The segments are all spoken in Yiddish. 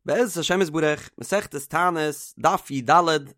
בעזרת השם יתברך, מסכת תענית, דף י"ד,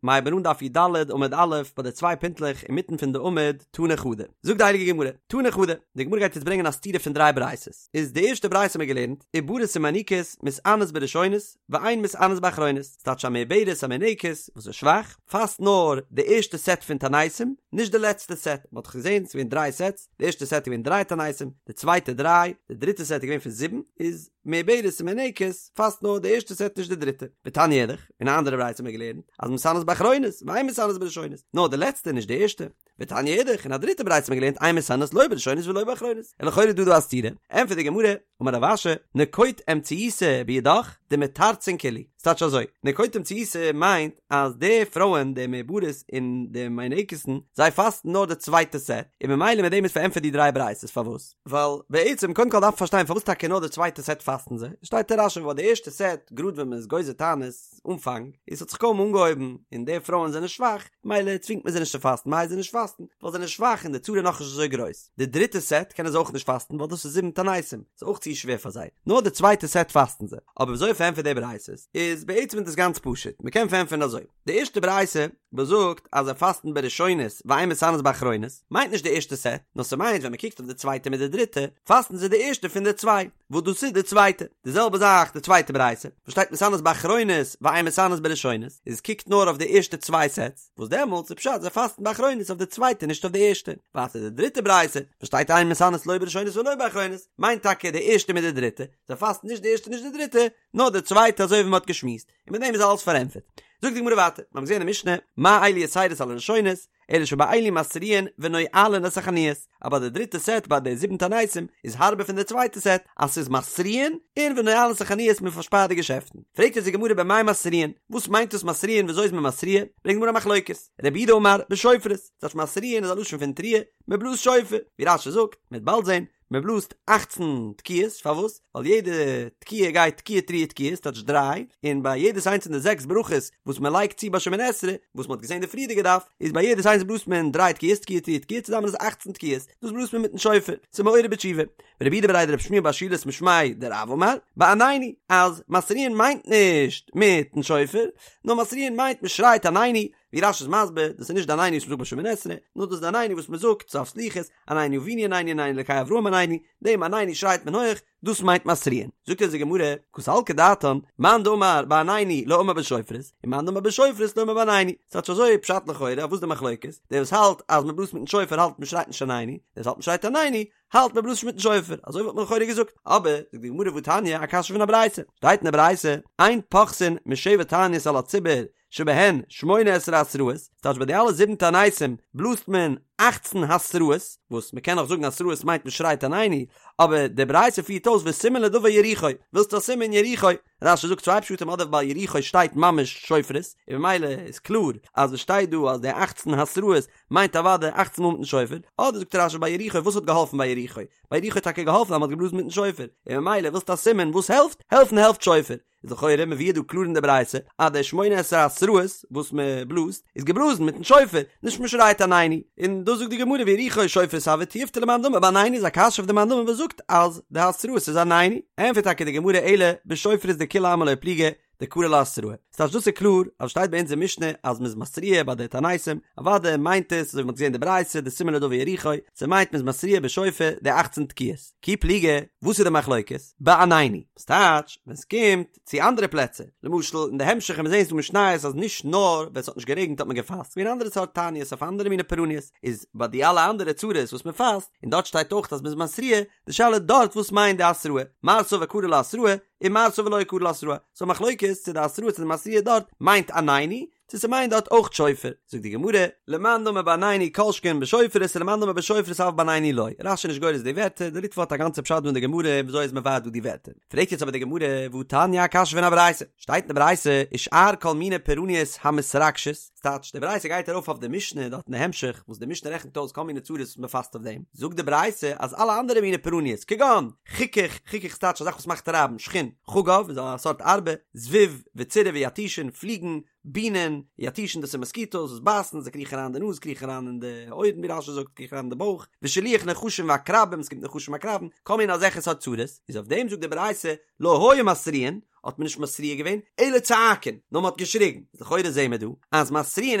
מ'הייבן אן דף י"ד עמוד א', ביי די צוויי פינטלעך אינמיטן פון די עמוד, תני חדא. זאגט די הייליגע גמרא, תני חדא, די גמרא גייט יעצט ברענגען א סתירה פון דריי ברייתות. איז די ערשטע ברייתא האבן מיר געלערנט, עוברות ומיניקות, מתענות בראשונות, ואין מתענות באחרונות. ס'טייטש א מעוברת א מינקת, וואס איז שוואך, פאסט נאר די ערשטע סעט פון תעניתים, נישט די לעצטע סעט. מ'האט דאך געזען, ס'איז געווען דריי סעטס, די ערשטע סעט איז געווען דריי תעניתים, די צווייטע דריי, די דריטע סעט איז געווען פון זיבן, איז מעוברת און מינקת פאסט נאר די ערשטע סעט נישט די דריטע. ותניא אידך, אין א אנדערע ברייתא האט מען געלערנט אז מתענות באחרונות ואין מתענות בראשונות, נאר די לעצטע נישט די ערשטע. ותניא אידך, אין א דריטע ברייתא האט מען געלערנט אין מתענות לא בראשונות ולא באחרונות. און לכאורה איז דא דא א סתירה. ענטפערט די גמרא, אמר רב אשי, נקוט אמצעיתא בידך דמיתרצן כולהו. ס'טייטש אזוי, נקוט אמצעיתא מיינט אז די פרויען די מעוברות און די מינקת'ן זיי פאסטן נאר די צווייטע סעט, און ממילא מיט דעם איז פארענטפערט די דריי ברייתות פארוואס. ווייל בעצם קודם כל דארף מען פארשטיין פארוואס טאקע נאר די צווייטע סעט פאסטן זיי, שטייט אין רש"י ווייל די ערשטע סעט גראד ווען מען איז גוזר תענית אנפאנג איז ס'האט זיך קוים אנגעהויבן און די פרויען זענען שוואך מילא צווינגט מען זיי נישט צו פאסטן מ'הייסט זיי נישט פאסטן ווייל זיי זענען שוואך און די צרה איז נאכנישט אזוי גרויס, די דריטע סעט קענען זיי אויך נישט פאסטן ווייל דאס איז זיבן תעניתים ס'איז אויך צו שווער פאר זיי, נאר די צווייטע סעט פאסטן זיי, אבער וויאזוי פארענטפערט די ברייתות איז בעצם איז דאס גאנץ פשוט מ'קען פארענטפערן אזוי. די ערשטע ברייתא וואס זאגט אז זיי פאסטן בראשונות ואין מתענות באחרונות, מיינט נישט די ערשטע סעט, נאר ס'מיינט ווען מ'קוקט אויף די צווייטע מיט די דריטע, פאסטן זיי די ערשטע פון די צוויי, וואס דאס איז די צווייטע. די זעלבע זאך די צווייטע ברייתא, וואס שטייט מתענות באחרונות ואין מתענות בראשונות, איז קוקט נאר אויף די ערשטע צוויי סעטס, וואס דעמאלטס איז פשט זיי פאסטן באחרונות אויף די צווייטע נישט אויף די ערשטע. ווייטער די דריטע ברייתא, וואס שטייט אין מתענות לא בראשונות ולא באחרונות, מיינט טאקע די ערשטע מיט די דריטע, זיי פאסטן נישט די ערשטע נישט די דריטע, נאר די צווייטע אזוי ווי מ'האט געשמועסט. און מיט דעם איז אלעס פארענטפערט. זאגט די גמרא ווייטער, מיר האבן געזען אין משנה, מה אלו יתירות על הראשונות, אלא שבאלו מתריעין ונועלין את החנויות, אז ביי די דריטע סעט ביי די זיבן תעניתים איז הארבער פון די צווייטע סעט, אז ס'איז מתריעין און ונועלין את החנויות מען פארשפארט די געשעפטן. פרעגט יעצט די גמרא במאי מתריעין, וואס מיינט דאס מתריעין וויאזוי איז מען מתריע? ברענגט די גמרא א מחלוקת, רב יהודה אמר בשופרות, ס'טייטש מתריעין איז א לשון פון תרועה, מען בלאזט שופר, ווי רש"י זאגט, מען וועט באלד זען, מען בלאזט אכצן תקיעות, פארוואס? ווייל יעדע תקיעה גייט תקיעה תרועה תקיעה, ס'טייטש דריי, און ביי יעדעס איינס פון די זעקס ברכות וואס מען לייגט צו ביי שמונה עשרה, וואס מען האט געזען די פריערדיגע דף, איז ביי יעדעס איינס בלאזט מען דריי תקיעות, תקיעה תרועה תקיעה, צוזאמען איז אכצן תקיעות, דאס בלאזט מען מיטן שופר, ס'איז מעורר בתשובה. ורב יהודה בריה דרב שמואל בר שילת משמיה דרב אמר, בעננו, אז מתריעין מיינט נישט מיטן שופר, נאר מתריעין מיינט מען שרייט עננו, ווי רש"י איז מסביר, דאס איז נישט די עננו וואס מ'זאגט ביי שמונה עשרה, נאר דאס איז די עננו וואס מ'זאגט סוף סליחות, עננו אבינו עננו עננו אלקי אברהם עננו, דעם עננו שרייט מען הויך, דאס מיינט מתריעין. זאגט אונז די גמרא, קא סלקא דעתין, מאן דאמר בעננו לא אמר בשופרות, און מאן דאמר בשופרות לא אמר בעננו. ס'טייטש אזוי פשט לכאורה, אויף וואס די מחלוקת? דער וואס האלט אז מ'בלאזט מיטן שופר האלט מ'שרייט נישט עננו, דער וואס האלט מ'שרייט עננו האלט מ'בלאזט נישט מיטן שופר, אזוי וואלט מען לכאורה געזאגט, אבער, זאגט די גמרא והתניא, א קשיא פון א ברייתא, שטייט אין די ברייתא, אין פוחתין משבע תעניות על הציבור, שבהן שמונה עשרה התראות, ס'טייטש ביי די אלע זיבן תעניתים בלאזט מען אכצן התראות, וואס מ'קען נאך זאגן התראות מיינט מ'שרייט עננו, אבער די ברייתא פירט אויס וסימן לדבר יריחו, ווילסט א סימן יריחו? רש"י זאגט צוויי פשטים אדער ביי יריחו שטייט ממש שופרות, און ממילא איז קלאר אז וואס שטייט דא אז די אכצן התראות מיינט אוודאי אכצן מאל מיטן שופר, אדער זאגט רש"י ביי יריחו וואס האט געהאלפן ביי יריחו? ביי יריחו האט טאקע געהאלפן אז מ'האט געבלאזן מיטן שופר, און ממילא ווילסט א סימן וואס העלפט? העלפן העלפט שופר. איז לכאורה מבואר דא קלאר אין די ברייתא אז די שמונה עשרה התראות וואס מען בלאזט איז געבלאזן מיטן שופר, נישט מען שרייט עננו, און דאס זאגט די גמרא ויריחו שופרות הוו תיובתא למאן דאמר בעננו איז א קשיא אויף די מאן דאמר וואס זאגט אז די התראות איז עננו, ענפערט טאקע די גמרא אלא בשופרות דכולי עלמא לא פליגי דקרי לה התראה, ס'טייטש דאס איז קלאר אז שטייט ביי אונז אין משנה אז מ'איז מתריע ביי די תעניתים, אוודאי מיינט עס אזוי ווי מ'האט געזען די ברייתא די סימן לדבר יריחו, ס'מיינט מ'איז מתריע בשופר די אכצן תקיעות, כי פליגי, וואס איז די מחלוקת? בעננו. ס'טייטש, ווען ס'קומט צו אנדערע פלעצער, למשל אין די המשך ווען מיר זעהן ס'דא משניות אז נישט נאר ווען ס'האט נישט גערעגנט האט מען געפאסט, ס'געווען אנדערע סארט תעניות אויף אנדערע מיני פורעניות, איז ביי די אלע אנדערע צרות וואס מען פאסט, און דארט שטייט אויך אז מ'איז מתריע, די שאלה דארט וואס מיינט די התראה, מר סבר קרי לה התראה, און מר סבר לא קרי לה התראה, ס'א מחלוקת צו די התראה צו די מתריע דארט מיינט עננו, צו ס'מיינט דארט אויך שופר, זאגט די גמרא, למאן דאמר בעננו כל שכן בשופרות ולמאן דאמר בשופרות אבל בעננו לא, רש"י איז נישט גורס די ווערטער, די ריטב"א האט א גאנצע פשט דא אין די גמרא וויאזוי איז מבאר דא די ווערטער. פרעגט יעצט אבער די גמרא, והתניא א קשיא פון א ברייתא, שטייט אין די ברייתא, ושאר כל מיני פורעניות המתרגשות, ס'טייטש, די ברייתא גייט ארויף אויף די משנה דארט אין די המשך, וואס די משנה רעכנט אויס כל מיני צרות וואס מ'פאסט אויף דעם, זאגט די ברייתא אז אלע אנדערע מיני פורעניות, כגון, חיכוך, חיכוך ס'טייטש א זאך וואס מאכט רייבן, שחין, חגב איז א סארט ארבה, זבוב, וצירעה ויתושין, פליגן, בינען, יתושין דאס איז מאסקיטאס וואס בייסן, זיי קריכן אריין אין די נאז, קריכן אריין אין די אויערן ווי רש"י זאגט, קריכן אריין אין די בויך, ושילוח נחשים ועקרבים, עס קומט נחשים עקרבים, כל מיני אזעלכע סארט צרות, איז אויף דעם זאגט די ברייתא, לא היו מתריעין, האט מען נישט מתריע געווען, אלא צועקין, נאר מען האט געשריגן, איז לכאורה זעהן מיר דא אז מתריעין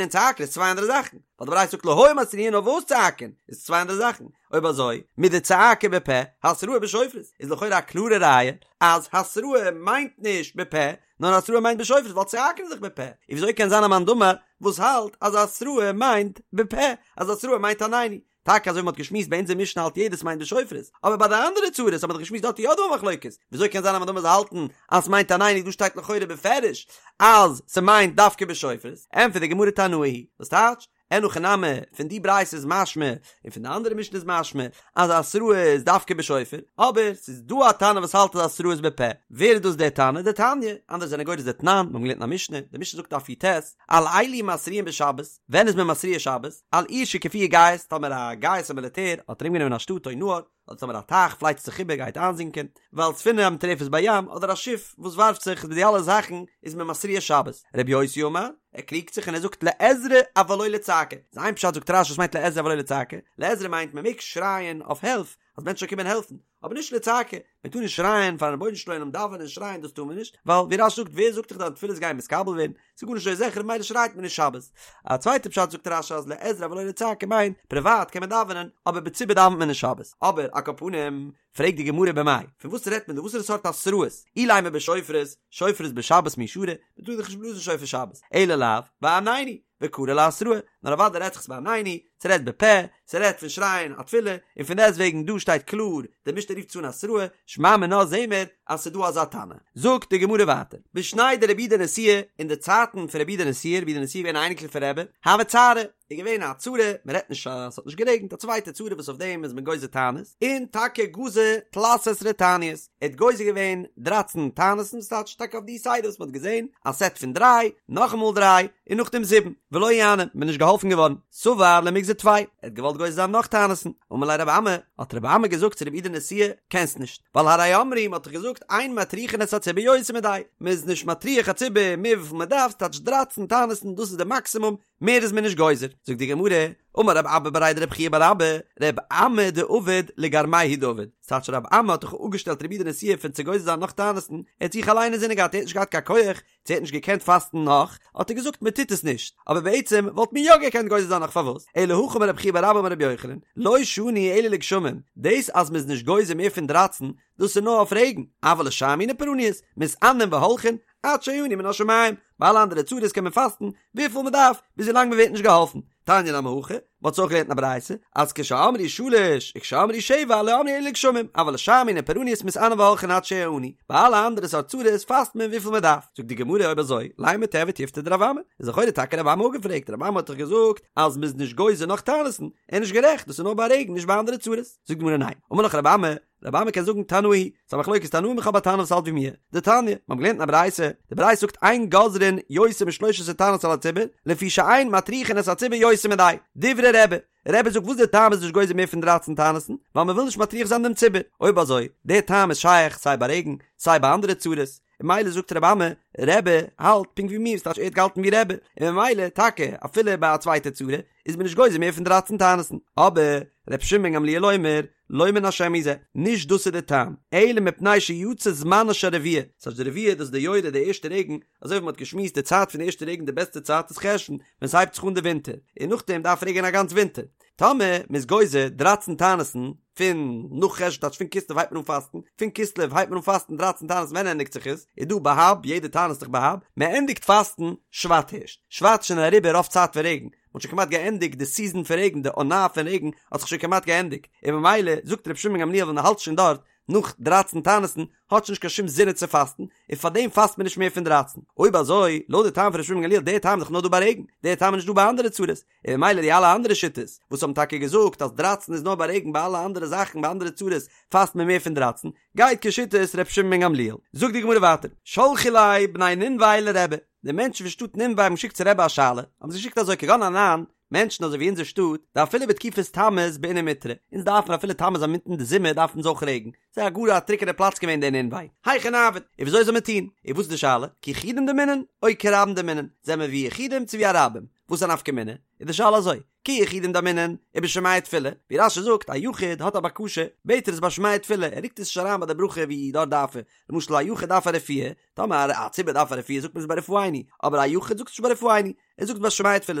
און צועקין איז צוויי אנדערע זאכן, ווייל די ברייתא זאגט לא היו מתריעין נאר וואס צועקין איז צוויי אנדערע זאכן, אויב אזוי מדצעקה בפה התראה בשופרות איז לכאורה א קלארע ראיה אז התראה מיינט נישט בפה נאר התראה מיינט בשופרות ווייל צועקין איז דאך בפה, און וויאזוי קען זיין א מאן דאמר וואס האלט אז התראה מיינט בפה אז התראה מיינט עננו, טאקע אזוי ווי מ'האט געשמועסט ביי אונזער משנה האלט יעדער ס'מיינט בשופרות, אבער ביי די אנדערע צרות האט מען דאך געשמועסט דארט איז יא דא א מחלוקת, וויאזוי קען זיין א מאן דאמר זאל האלטן אז ס'מיינט עננו דא שטייט לכאורה בפירוש אז ס'מיינט דווקא בשופרות, ענטפערט די גמרא תנאי היא וואס טייטש? אין הכי נמי, פון די ברייתא איז משמע, און פון די אנדערע משנה איז משמע, אז התראה איז דווקא בשופר, אבער ס'איז דא א תנא וואס האלט אז התראה איז בפה, ווער איז דאס דער תנא? דתניא, אנדערע זענען גורס דתנן, מיר האבן געלערנט אין א משנה, די משנה זאגט דף י"ט, על אלו מתריעין בשבת, ווען איז מען מתריע שבת? על עיר שהקיפוה גייס, טאמער א גייס א מיליטער האט ארומגענומען א שטאט או נהר, אדער טאמער א טייך פלייצט זיך איבער גייט איינזינקען, ועל ספינה המטורפת בים, אדער א שיף וואס ווארפט זיך, מיט די אלע זאכן איז מען מתריע שבת. רבי יוסי אמר, ער קריגט זיך און ער זאגט לעזרה אבל לא לצעקה. איז איין פשט זאגט רש"י וואס מיינט לעזרה אבל לא לצעקה? לעזרה מיינט מען מעג שרייען אויף הילף, אז מענטשן זאלן קומען העלפן, אבער נישט לצעקה, מען טאר נישט שרייען פארן רבונו של עולם דאווענען און שרייען דאס טאר מען נישט, ווייל ווי רש"י זאגט ווער זאגט דיך דיין תפילות גייען מתקבל ווערן, ס'איז גארנישט אזוי זיכער ממילא שרייט מען נישט שבת. א צווייטע פשט זאגט רש"י אז לעזרה אבל לא לצעקה מיינט פריוואט קען מען דאווענען אבער בציבור דאווענט מען נישט שבת. אבער על כל פנים פרעגט די גמרא במאי, פון וואס רעדט מען דא וואסערע סארט התראות, אילימא בשופרות, שופרות בשבת מי שרי, מען טאר דאך נישט בלאזן שופר שבת, אלא לאו, בעננו, וקרי לה התראה, נאר אוודאי רעדט זיך עס בעננו, ס'רעדט בפה, ס'רעדט פון שרייען א תפילה, און פון דעסט וועגן דא שטייט קלאר, די משנה רופט עס אן התראה, שמע מינה זעהן מיר אז ס'דא אזא תנא. זאגט די גמרא ווייטער, בשני דרבי יהודה נשיאה, אין די צייטן פון רבי יהודה נשיאה, רבי יהודה נשיאה איז געווען א אייניקל פון רבי, הוה צערא, איז געווען א צרה, מען רעדט נישט אז ס'האט נישט גערעגנט, א צווייטע צרה וואס אויף דעם איז מען גוזר תענית, און טאקע גזר תלת עשרה תעניות, ער האט גוזר געווען דרייצן תענית'ן, ס'טייטש טאקע אויף די סדר וואס מ'האט געזען, א סעט פון דריי, נאכאמאל דריי, און נאכדעם זיבן, ולא איעני, מ'איז נישט געהאלפן געווארן, סבר למיגזר טפי, ער האט געוואלט גוזר זיין נאך תענית'ן, אמר ליה רבי אמי, האט רבי אמי געזאגט צו רבי יהודה נשיאה, קענסט נישט, ווייל הרי אמרו, מ'האט דאך געזאגט, אין מטריחין את הציבור יותר מדאי, מ'איז נישט מטריח א ציבור מער וויפיל מ'דארף, ס'טייטש דרייצן תענית'ן, דאס איז די מאקסימום, מער איז מען נישט גוזר, זאגט די גמרא, אמר רב אבא בריה דרב חייא בר אבא, רב אמי דעבד לגרמיה הוא דעבד, ס'טייטש רב אמי האט דאך אפגעשטעלט רבי יהודה נשיאה פון צו גוזר זיין נאך תענית'ן, ער האט זיך אליין אינזינען געהאט, ער האט נישט געהאט קיין כח, צו ער האט נישט געקענט פאסטן נאך, האט ער געזאגט מען טוט עס נישט, אבער בעצם וואלט מען יא געקענט גוזר זיין נאך פארוואס, אלא הכי אמר רב חייא בר אבא אמר רבי יוחנן, לא שנו אלא לגשמים, דאס אז מ'איז נישט גוזר מער פון דרייצן, דאס איז נאר אויף רעגן, אבל לשאר מיני פורעניות, מתענין והולכין, עד שיענו מן השמים, ביי אלע אנדערע צרות קען מען פאסטן וויפיל מען דארף, ביז ווילאנג מען ווערט נישט געהאלפן. תניא נמי הכי, מען האט עס אויך געלערנט אין א ברייתא, אז כשאמרו שלש וכשאמרו שבע לא אמרו אלא לגשמים, אבל לשאר מיני פורעניות מתענין והולכין עד שיענו, ביי אלע אנדערע סארט צרות פאסט מען וויפיל מען דארף. זאגט די גמרא אויב אזוי, לימא תיהוי תיובתא דרב אמי, איז לכאורה טאקע רב אמי אפגעפרעגט, רב אמי האט דאך געזאגט אז מען איז נישט גוזר נאך תענית'ן, ער איז נישט גערעכט, דאס איז נאר ביי רעגן נישט ביי אנדערע צרות. זאגט די גמרא ניין, אמר לך רב אמי, רב אמי קען זאגן תנאי היא, ס'איז א מחלוקת תנאים איך האב א תנא וואס האלט ווי מיר, דתניא, מ'האט געלערנט אין א ברייתא, די ברייתא זאגט אין גוזרין יותר משלש עשרה תעניות על הציבור, לפי שאין מטריחין את הציבור יותר מדאי, דברי רבי, רבי זאגט וואס די טעם איז נישט גוזר מער פון דרייצן תענית'ן, ווייל מ'וויל נישט מטריח זיין דעם ציבור, אויב אזוי, די טעם איז שייך סיי ביי רעגן, סיי ביי אנדערע צרות, און ממילא זאגט רבי אמי, רבי האלט פונקט ווי מיר, ס'טייטש ער האט געהאלטן ווי רבי, און ממילא טאקע אפילו ביי א צווייטע צרה, איז מען נישט גוזר מער פון דרייצן תענית'ן, אבער ר' שמעון בן גמליאל אומר, לא מן השם הוא זה, נישט דאס איז די טעם, אלא מפני שיצא זמנה של רביעה, ס'הייסט די רביעה דאס איז די יורה די ערשטע רעגן, אזוי ווי מ'האט געשמועסט די צייט פון די ערשטע רעגן די בעסטע צייט איז חשון ווען ס'הייבט זיך אן די ווינטער, און נאכדעם דארף רעגענען א גאנץ ווינטער, טאמער מ'איז גוזר דרייצן תענית'ן פון נאך חשון טייטש פון כסלו הייבט מען אן פאסטן, פון כסלו הייבט מען אן פאסטן דרייצן תענית'ן ווען ענדיגט זיך עס? איז דא בה"ב יעדע תענית איז דאך בה"ב, מ'ענדיגט פאסטן שבט הערשט, שבט איז שוין אריבער רוב צייט פון רעגן, מ'האט שוין כמעט געענדיגט די סיזען פון רעגן, די עונה פון רעגן האט זיך שוין כמעט געענדיגט, און ממילא זאגט רבי שמעון בן גמליאל ווען מ'האלט שוין דארט נאך דרייצן תענית'ן האט שוין נישט קיין שום זין צו פאסטן, און פארדעם פאסט מען נישט מער פון דרייצן. אויב אזוי, לויט די טעם פון רבי שמעון בן גמליאל, דער טעם איז דאך נאר דא ביי רעגן, דער טעם איז נישט דא ביי אנדערע צרות, און ממילא די אלע אנדערע שיטות וואס האבן טאקע געזאגט אז דרייצן איז נאר ביי רעגן ביי אלע אנדערע זאכן ביי אנדערע צרות פאסט מען מער פון דרייצן, גייט כשיטת רבי שמעון בן גמליאל. זאגט די גמרא ווייטער, שלחו ליה בני נינווה לרבי, די מענטשן פון שטאט נינווה האבן געשיקט צו רבי א שאלה, האבן זיי געשיקט אזוי כגון אנן, מענטשן אזוי ווי אונזער שטאט, דאפילו בתקופת תמוז בעינן מיטרא, אונז דארפן אפילו תמוז אינמיטן די זומער דארפן אונז אויך רעגן, ס'איז א גאר א טרוקענע פלאץ געווען דער נינווה, היכי נעביד, און וויאזוי זאל מען טון? און וואס איז די שאלה? כיחידים דמינן, או כרבים דמינן, זעמער ווי יחידים צו ווי א רבים? וואס איז א נפקא מינה? איז די שאלה אזוי, כיחידים דאמרינן, ובשומע תפילה, ווי רש"י זאגט, א יחיד האט א בקשה, בעט ער עס ביי שומע תפילה, ער רוקט עס נישט אריין ביי די ברכה ווי דארט דארף ער, למשל א יחיד דארף א רפואה, טאמער א ציבור דארף א רפואה זאגט מען עס ביי רפאנו, אבער א יחיד זאגט עס נישט ביי רפאנו, ער זאגט ביי שומע תפילה,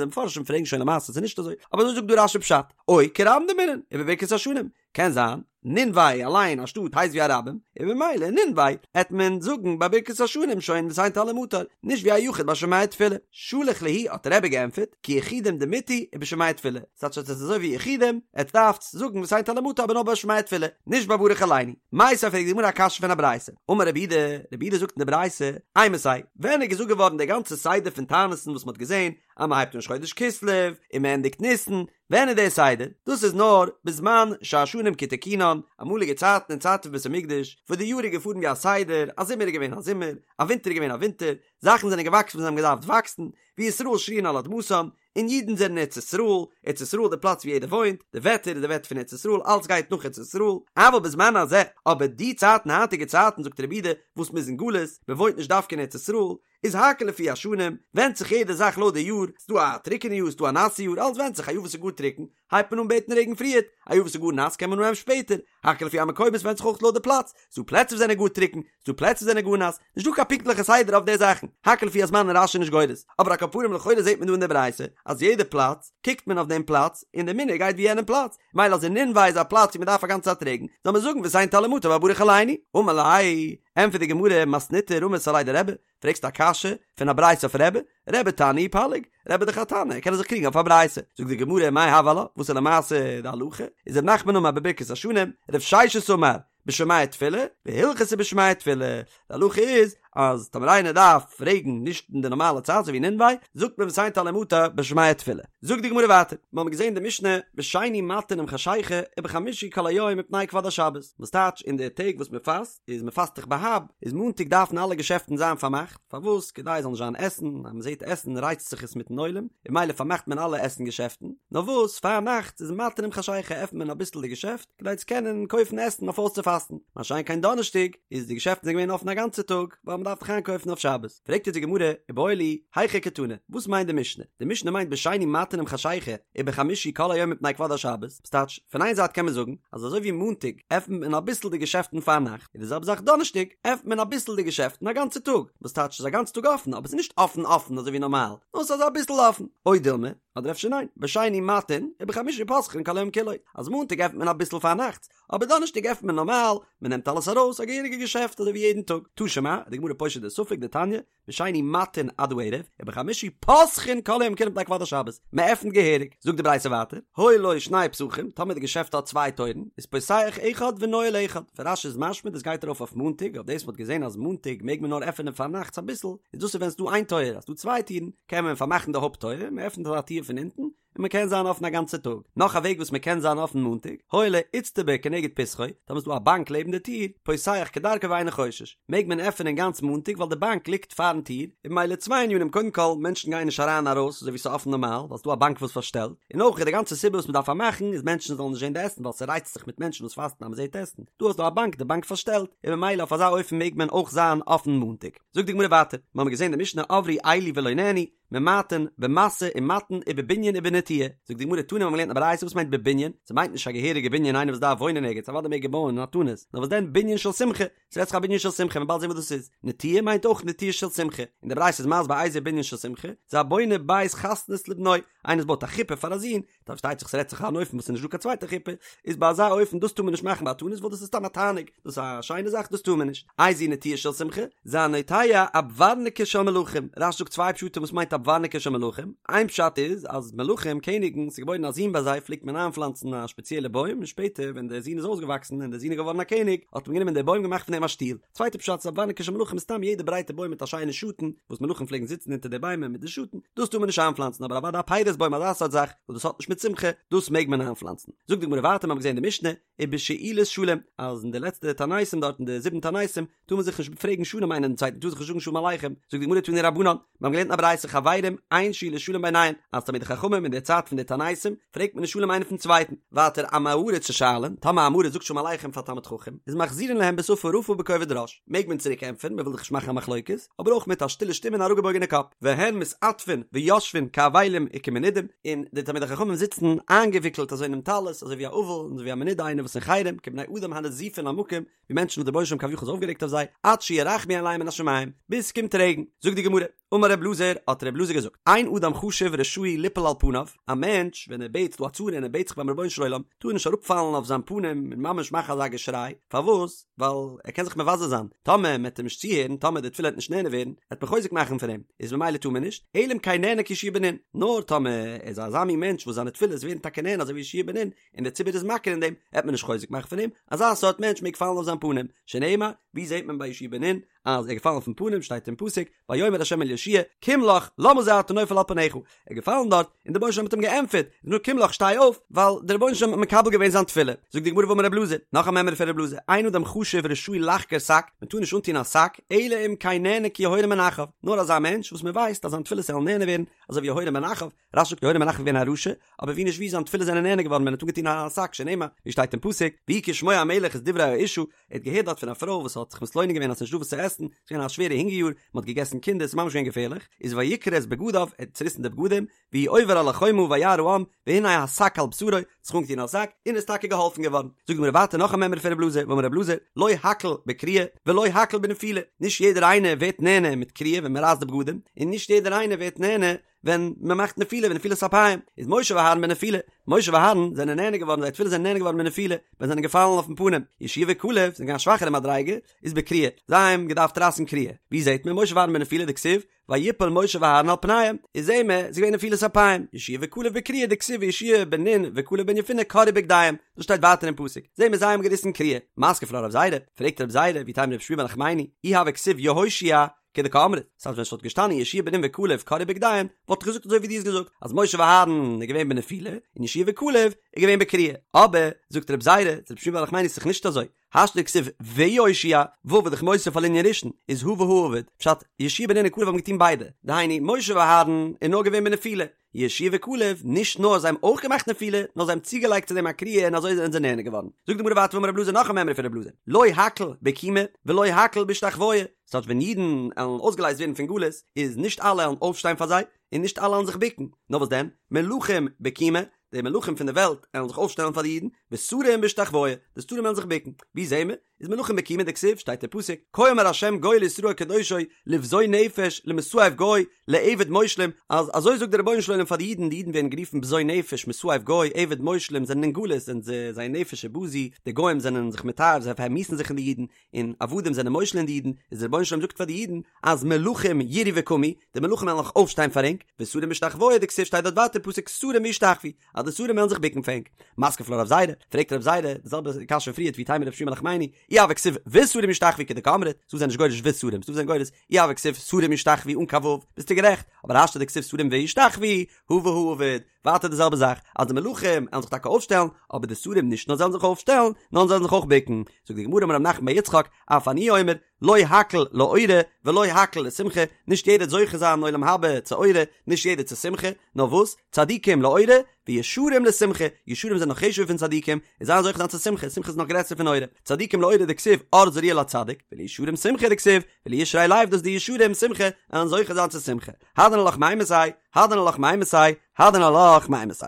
די מפרשים פרעגן שוין למעשה ס'איז נישט אזוי, אבער אזוי זאגט דא רש"י פשט, או כרבים דאמרינן, ובברכת השנים, קען זיין, נינווה אליין א שטאט הייסט ווי א רבים, און ממילא נינווה העט מען זאגן ביי ברכת השנים שוין ותן טל ומטר, נישט ווי א יחיד ביי שומע תפילה. שלח להו האט רבי געענטפערט, כיחידים דמיתו ובשומע תפילה, ס'טייטש אז עס איז אזוי ווי יחידים, עטס דארפטס זאגן ותן טל ומטר אבער נאר ביי שומע תפילה, נישט ביי ברך עלינו. מיתיבי פרעגט די גמרא א קשיא פון א ברייתא, אמר רב יהודה, רב יהודה זאגט אין די ברייתא, אימתי, ווען איז געזאגט געווארן דער גאנצער סדר פון תענית'ן וואס מ'האט געזען אז מ'הייבט אן ראש חודש כסלו און מ'ענדיגט ניסן, ווען איז דער סדר? דאס איז נאר בזמן שהשנים כתיקונן, אמאליגע צייטן אין צייט פון בית המקדש, וואס די יאר איז געפארן ווי א סדר, א זומער איז געווען א זומער, א ווינטער איז געווען א ווינטער, זאכן זענען געוואקסן וואו זיי האבן געדארפט וואקסן, וישראל שרויין על אדמתם, און אידן זענען אין ארץ ישראל, ארץ ישראל איז די פלאץ ווי יעדער וואוינט, די וועטער איז די וועטער פון ארץ ישראל, אלץ גייט נאך ארץ ישראל, אבל בזמן הזה, אבער די צייטן היינטיגע צייטן זאגט רב יהודה, וואס מ'איז אין גלות, מ'וואוינט נישט דווקא אין ארץ ישראל, איז הכל לפי השנים, ווענדט זיך יעדע זאך לויט די יאר, ס'דא א טרוקענע יאר ס'דא א נאסע יאר, אלץ ווענדט זיך, א יאר וואס איז גאר טרוקן, הייבט מען אן בעטן רעגן פריערט, א יאר וואס איז גאר נאס קען מען אנהייבן שפעטער, הכל לפי המקומות ווענדט זיך אויך לויט די פלאץ, ס'דא פלעצער וואס זענען גאר טרוקן, ס'דא פלעצער וואס זענען גאר נאס, נישט דא קיין פונקטליכע סדר אויף די זאכן, הכל לפי הזמן איז רש"י נישט גורס, אבער על כל פנים לכאורה זעט מען דא אין די ברייתא אז יעדע פלאץ קוקט מען אויף דעם פלאץ און די מנהג גייט ווי יענעם פלאץ, מילא אז אין נינווה איז א פלאץ ווי מען דארף א גאנצע צייט רעגן, זאל מען זאגן ותן טל ומטר ביי ברך עלינו, אמר ליה, ענטפערט די גמרא, מתניתא רמית עליה דרבי, פרעגסט א קשיא פון א ברייתא אויף רבי? רבי תנא ופליג, רבי דאך א תנא, ער קען זיך קריגן אויף א ברייתא. זאגט די גמרא מאי הוי עלה, וואס איז למעשה די הלכה? איז רב נחמן אמר בברכת השנים, רב ששת אמר בשומע תפילה, והלכתא בשומע תפילה. די הלכה איז אז טאמער איינער דארף רעגן נישט אין די נארמאלע צייט אזוי ווי אין נינווה, זאגט מען ותן טל ומטר בשומע תפילה. זאגט די גמרא ווייטער, מיר האבן געזען די משנה בשני מטין עם חשיכה ובחמישי כל היום מפני כבוד השבת, וואס טייטש אין די טעג וואס מען פאסט, איז מען פאסט דאך בה"ב, איז מאנטאג דארפן אלע געשעפטן זיין פארמאכט, פארוואס? כדי עס זאל נישט זיין עסן, אז מען זעט עסן רייצט זיך עס מיטן עולם, און ממילא פארמאכט מען אלע עסן געשעפטן, נאר וואס פארנאכטס איז מטין עם חשיכה עפנט מען אביסל די געשעפט, כדי צו קענען קויפן עסן אויף אויסצופאסטן, מה שאין כן דאנערשטאג איז די געשעפטן זענען געווען אפן א גאנצע טאג, ווייל מען דארף דאך איינקויפן אויף שבת. פרעגט אונז די גמרא, איבעיא להו, היכי קתני, וואס מיינט די משנה? די משנה מיינט בשני מטין עם חשיכה, ובחמישי כל היום מפני כבוד השבת, ס'טייטש, פון איין זייט קען מען זאגן, אז אזוי ווי מאנטאג עפנט מען אביסל די געשעפטן פארנאכט, איז די זעלבע זאך דאנערשטאג, עפנט מען אביסל די געשעפטן א גאנצע טאג, וואס טייטש ס'איז א גאנצע טאג אפן, אבער ס'איז נישט אפן אפן אזוי ווי נארמאל, נאר ס'איז אביסל אפן. או דילמא, אדער אפשר ניין, בשני מטין, ובחמישי פותחין כל היום כולו, אז מאנטאג עפנט מען אביסל פארנאכטס, אבער דאנערשטאג עפנט מען נארמאל, מען נעמט אלעס ארויס, א געהעריגע געשעפט אזוי ווי יעדן טאג. תא שמע, די גמרא פושט די ספק דתניא, בשני מטין עד הערב, ובחמישי פותחין כל היום כולו מפני כבוד השבת, מען עפנט געהעריג, זאגט די ברייתא ווייטער, היו לו שני פתחים, טאמער די געשעפט האט צוויי טויערן, איז פותח אחד ונועל אחד, פון רש"י איז משמע דאס גייט ארויף אויף מאנטאג, אויף דאס מ'האט געזען אז מאנטאג מעג מען נאר עפענען פארנאכטס אביסל, איז דאס איז ווען ס'דא איין טויער, אז ס'דא צוויי טירן, קען מען פארמאכן די הויפט טויער, מען עפנט אזא טיר פון אונטן, און מען קען זיין אפן א גאנצע טאג. נאך א וועג וואס מען קען זיין אפן מאנטאג, היה לו איצטבא כנגד פתחו, טאמער איז דא א באנק לעבן די טיר, פותח כדרכו ואינו חושש, מעג מען עפענען גאנץ מאנטאג ווייל די באנק ליגט פארן טיר, און ממילא צוויי ענינים קודם כל מענטשן גייען נישט אריין ארויס אזוי ווי ס'איז אפן נארמאל ווייל ס'איז דא א באנק וואס פארשטעלט, און אויך איז די גאנצע סיבה וואס מען דארף פארמאכן איז מענטשן זאלן נישט זען די עסן ווייל ס'רייצט זיך מיט מענטשן וואס פאסטן אז מ'זעט עסן, דא האסטו א באנק די באנק פארשטעלט, און ממילא אויף אזא אופן מעג מען אויך זיין אפן מאנטאג. זאגט די גמרא ווייטער, מ'האמיר געזען די משנה עברו אלו ולא נענו, ממעטין במשא ומתן ובבנין ובנטיעה, זאגט די גמרא תנא מ'האט געלערנט א ברייתא וואס מיינט בבנין, ס'מיינט נישט א געהעריגע בנין איינער וואס דארף וואוינען ערגעץ אוודאי מעג ער בויען אין א תענית, נאר וואס דען בנין של שמחה, ס'רעדט זיך א בנין של שמחה מ'וועט באלד זען וואס דאס איז, נטיעה מיינט אויך נטיעה של שמחה, און די ברייתא איז מסביר איזהו בנין של שמחה, זה הבונה בית חתנות לבנו, איינער וואס בויט א חופה פאר א זון, פארשטייט זיך ס'רעדט זיך אן אופן וואס איז נישט דא קיין צווייטע חופה, איז ביי אזא אופן דאס טאר מען נישט מאכן ביי א תענית ווייל דאס איז סתם א תענוג, דאס איז א שיינע זאך דאס טאר מען נישט. איזוהי נטיעה של שמחה, זה הנוטע אבוורנקי של מלכים, רש"י זאגט צוויי פשטים וואס מיינט אבוורנקי של מלכים, איין פשט איז אז מלכים, קעניגן, ס'איז געבוירן א זון ביי זיי פלעגט מען איינפלאנצן א שפעציעלע בוים און שפעטער ווען דער זון איז אויסגעוואקסן און דער זון איז געווארן א קעניג האט מען גענומען די בוים געמאכט פון דעם א שטול, צווייטע פשט איז אבוורנקי של מלכים איז סתם יעדע ברייטע בוים מיט א שיינע שאטן וואס מלכים פלעגן זיצן אונטער די ביימער מיט די שאטן, דאס טאר מען נישט איינפלאנצן אבער אוודאי א פירות בוים אזא סארט זאך וואס דאס האט נישט מיט שמחה דאס מעג מען איינפלאנצן. זאגט די גמרא ווייטער מיר האבן געזען אין די משנה ובשאילת שלום אז אין די לעצטע תעניתים דארט אין די זיבן תעניתים טאר מען זיך נישט פרעגן שלום איינער דעם צווייטן טאר זיך נישט זאגן שלום עליכם, זאגט די גמרא תנו רבנן מיר האבן געלערנט אין א ברייתא חברו. חברים אין שאילת שלום ביניהן, אז תלמידי חכמים אין די צייט פון די תעניתים פרעגט מען נישט שלום איינער פון צווייטן, ווייטער עמי הארץ ששואלין, טאמער א עם הארץ זאגט שלום עליכם פאר תלמיד חכם, איז מחזירין להם בשפה רפה ובכובד ראש, מעג מען צוריק ענטפערן, מען וויל דאך נישט מאכן א מחלוקת, אבער אויך מיט א שטילע שטימע און אראפגעבויגענע קאפ, והן מתעטפין ויושבין כאבלים וכמנודים, און די תלמידי חכמים זיצן איינגעוויקלט אזוי אינעם טלית, אזוי ווי א אבל און אזוי ווי א מנודה איינער וואס אין חרם, כבני אדם הנזופין למקום, ווי מענטשן וואס דער רבונו של עולם כביכול איז אויפגערעגט אויף זיי, עד שירחמו עליהם מן השמים, ביז ס'קומט רעגן. זאגט די גמרא, אמר ר' אלעזר, האט ר' אלעזר געזאגט, אין אדם חשוב רשאי ליפול על פניו, א מענטש ווען ער בעט ס'דא א צרה און ער בעט זיך ביים רבונו של עולם, טאר ער נישט אראפפאלן אויף זיין פנים און ממש מאכן אזא געשריי, פארוואס? ווייל ער קען זיך מבזה זיין, טאמער מען וועט אים נישט צוהערן, טאמער די תפילה וועט נישט נענה ווערן, וועט מען חוזק מאכן פון אים, איז ממילא טאר מען נישט, אלא אם כן נענה כיהושע בן נון, נאר טאמער ער איז אזא מין מענטש וואס זיינע תפילות ווערן טאקע נענה אזוי ווי יהושע בן נון, און דער ציבור איז מכיר אין דעם, וועט מען נישט חוזק מאכן פון אים, אזא סארט מענטש מעג פאלן אויף זיין פנים, שנאמר, ווי זעט מען ביי יהושע בן נון אז ער איז געפאלן אויפן פנים, שטייט אין פסוק, ויאמר ה' אל יהושע, קום לך, למה זה אתה נופל על פניך, ער איז געפאלן דארט, און דער רבונו של עולם האט אים געענטפערט, נו קום לך שטיי אויף, ווייל דער רבונו של עולם האט מקבל געווען זיין תפילה. זאגט די גמרא ואמר רב אלעזר, נאך א מימרא פון רב אלעזר, אין אדם חשוב רשאי לחגור שק, מען טאר נישט אנטון א שק, אלא אם כן נענה כיהורם בן אחאב, נאר אזא מענטש וואס מען ווייסט אז זיין תפילות וועלן נענה ווערן, אזוי ווי יהורם בן אחאב, רש"י זאגט יהורם בן אחאב איז געווען א רשע, אבער ווי נישט ווי זיין תפילות זענען נענה געווארן ווען ער האט אנגעטון א שק שנאמר, ווי שטייט אין פסוק, ויהי כשמוע המלך את דברי האשה, ער האט געהערט דארט פון א פרוי וואס האט זיך מתלונן געווען אז ס'נישט דא וואס צו עסן, ס'איז געווען א שווערע הונגער יאר, מ'האט געגעסן קינדער, ס'איז ממש געווען געפערליך, איז ויקרע את בגדיו, ער האט צוריסן די בגדים, והוא עובר על החומה וירא העם, והנה השק על בשרו, האט זיך אנגעטון א זאק, און איז טאקע געהאלפן געווארן. זאגט די גמרא ווייטער נאך א מימרא פון רב אלעזר, ואמר רב אלעזר, לא הכל בקריעה, ולא הכל בנפילה, נישט יעדער איינער ווערט נענה מיט קריעה ווען מ'רייסט די בגדים, און נישט יעדער איינער ווערט נענה ווען מען מאכט נפילה ונפילת אפיים איז משה ואהרן בנפילה, משה ואהרן זענען נענה געווארן זייער תפילות זענען נענה געווארן בנפילה ווען זיי זענען געפאלן אויפן פנים, יהושע וכלב זענען געווען א שוואכערע מדריגה איז בקריעה, זיי האבן געדארפט רייסן קריעה, ווי זעט מען משה ואהרן בנפילה דכתיב ויפל משה ואהרן על פניהם, איז זעהן מיר ס'איז געווען נפילת אפיים, יהושע וכלב בקריעה דכתיב ויהושע בן נון וכלב בן יפונה קרעו בגדיהם, דאס שטייט ווייטער אין פסוק, זעהן מיר זיי האבן געריסן קריעה, מתקיף לה רב זירא, פרעגט רב זירא ואיתימא רב שמואל בר נחמני, אי הוה כתיב יהושע כדקאמרת, ס'הייסט ווען ס'וואלט געשטאנען יהושע בן נון וכלב קרעו בגדיהם, וואלט איך געזאגט אזוי ווי דו האסט געזאגט, אז משה ואהרן איז געווען בנפילה, און יהושע וכלב איז געווען בקריעה. אבער, זאגט רב זירא, צו רב שמואל בר נחמני ס'איז דאך נישט אזוי, השתא דכתיב ויהושע, ו' איז דאך מוסיף על ענין ראשון, איז הא והא עביד, פשט, יהושע בן נון און כלב האבן געטון ביידע, דהיינו, משה ואהרן איז נאר געווען בנפילה, יהושע וכלב, נישט נאר זיי האבן אויך געמאכט נפילה, נאר זיי האבן צוגעלייגט צו דעם א קריעה און אזוי זענען זיי נענה געווארן. זאגט די גמרא ווייטער ואמר רב אלעזר נאך א מימרא פון רב אלעזר, לא הכל בקימה ולא הכל בהשתחוויה, ס'טייטש ווען אידן עלן אויסגעלייזט ווערן פון גלות, איז נישט אלע עלן אויפשטיין פאר זיי, און נישט אלע עלן זיך בוקן, נאר וואס דען, מלכים בקימה, די מלכים פון די וועלט עלן זיך אויפשטעלן פאר די אידן, ושרים בהשתחוויה, די שרים עלן זיך בוקן. ווי זעהן מיר? איז מלכים בקימה דכתיב, שטייט אין פסוק, כה אמר ה' גואל ישראל קדושו, לבזוי נפש, למסאב גוי, לעבד מושלים, אז אזוי זאגט דער רבונו של עולם פאר די אידן, די אידן ווערן גערופן בזוי נפש, מסאב גוי, עבד מושלים, זענען אין גלות, זענען זיי, זייער נפש איז בזוי, די גוים זענען זיך מתעב, זיי פארמיאוסן זיך אין די אידן, און עבדים זענען מושל אין די אידן, איז דער רבונו של עולם זאגט פאר די אידן, אז מלכים יראו וקמו, די מלכים וועלן זיך אויפשטיין פאר ענק, ושרים בהשתחוויה דכתיב שטייט דארט ווייטער פסוק שרים וישתחוו, אז די שרים וועלן זיך בוקן פאר ענק. מתקיף לה רב זירא, פרעגט רב זירא, די זעלבע קשיא פון פריערט ואיתימא רב שמואל בר נחמני, אי הוה כתיב ושרים ישתחוו כדקאמרת, ס'דא זענען נישט גורס ושרים, ס'דא זענען גורס אי הוה כתיב שרים ישתחוו אן קיין ו', ביסטו גערעכט, אבער השתא דכתיב שרים וישתחוו, הא והא עביד, ווייטער די זעלבע זאך, אז די מלכים וועלן זיך טאקע אויפשטעלן, אבער די שרים נישט נאר זיי וועלן זיך אויפשטעלן, נאר זיי וועלן זיך אויך בוקן. זאגט די גמרא אמר רב נחמן בר יצחק, אף אני אומר, לא הכל לאורה ולא הכל לשמחה, נישט יעדער וועט זוכה זיין אין עולם הבא צו אורה, נישט יעדער צו שמחה, נאר וואס, צדיקים לאורה, וישרים לשמחה, ישרים זענען נאך חשוב'ער פון צדיקים, און זיי זוכה זיין צו שמחה, שמחה איז נאך גרעסער פון אורה, צדיקים לאורה דכתיב אור זרוע לצדיק, ולישרים שמחה דכתיב, ולישרי לב דאס די ישרים שמחה, וועלן זוכה זיין צו שמחה. הדרן עלך מאימתי, הדרן עלך מאימתי, הדרן עלך מאימתי.